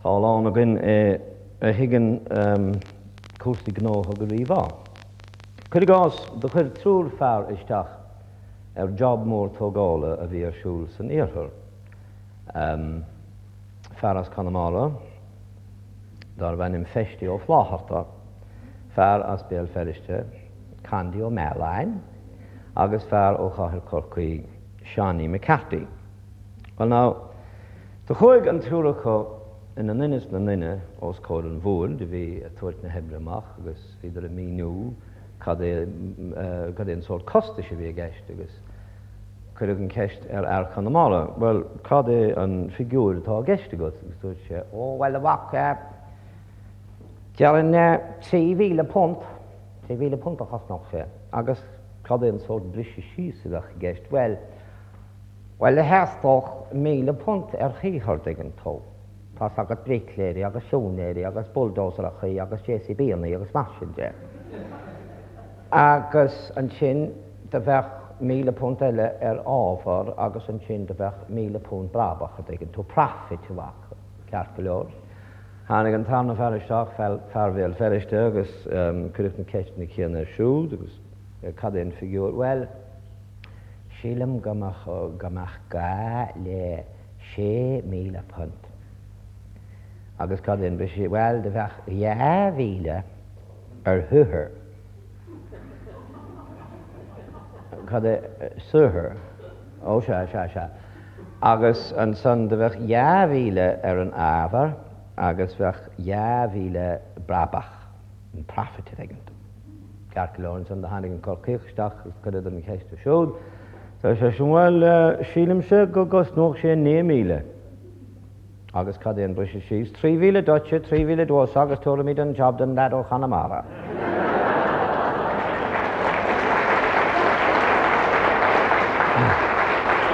Tá a lán againn a thuigeann cúrsaí gnótha go rímhaith. Cuir i gcás, do chuir triúr fear isteach ar job mór tógála a bhí ar siúl san iarthar. Fear as Conamara darbh ainm Feistí Ó Flátharta, fear as Béal Feirste, Condy Ó Mealláin, agus fear ó chathair Chorcaí, Seánie McCarthy. Well now, do chuaigh an triúr acu ina nduine is na nduine os comhair an bhoird a bhí ag tabhairt na hoibre amach agus bhíodar ag míniú cad é, cad é an sórt costais a bhí i gceist agus cuireadh an cheist ar fhear Chonamara, bhuel, cad é an figiúir atá i gceist agat? Agus dúirt sé, ó, bhuel, a mhac, déarfainn £3,000, £3,000 a chosnódh sé. Agus cad é an sórt briseadh síos a bheadh i gceist? Bhuel, Bhuel, theastódh £1,000 ar shaothar, dtuigeann tú. Tá's agat bricléirí agus siúinéirí agus bulldozerachaí agus JCB-annaí agus mar sin de. Agus ansin do bheadh £1,000 eile ar ábhar agus ansin do bheadh £1,000 brabach, a dtuigeann tú, profit, a mhac, ceart go leor. Tháinig an tarna fear isteach, fear Bhéal Feirste, agus cuireadh na ceisteanna céanna air siúd agus cad é an figiúr? Bhuel, Sílim go mbeadh go mbeadh gá le £6,000. Agus cad é an briseadh? Bhuel, do bheadh 2,000 ar shaothar. Cad é saothar? Ó, sea, sea, sea. Agus ansan do bheadh 2,000 ar an ábhar agus bheadh 2,000 brabach, an profit a dtuigeann tú. Ceart go leor, ansan do tháinig an Corcaíoch isteach agus cuireadar an cheist air siúd. Deir seisean, Bhuel, sílimse go gcosnódh sé 9,000. Agus cad é an briseadh síos? 3,000 duitse, 3,000 domhsa agus tabharfaimid an job don leaid ó Chonamara.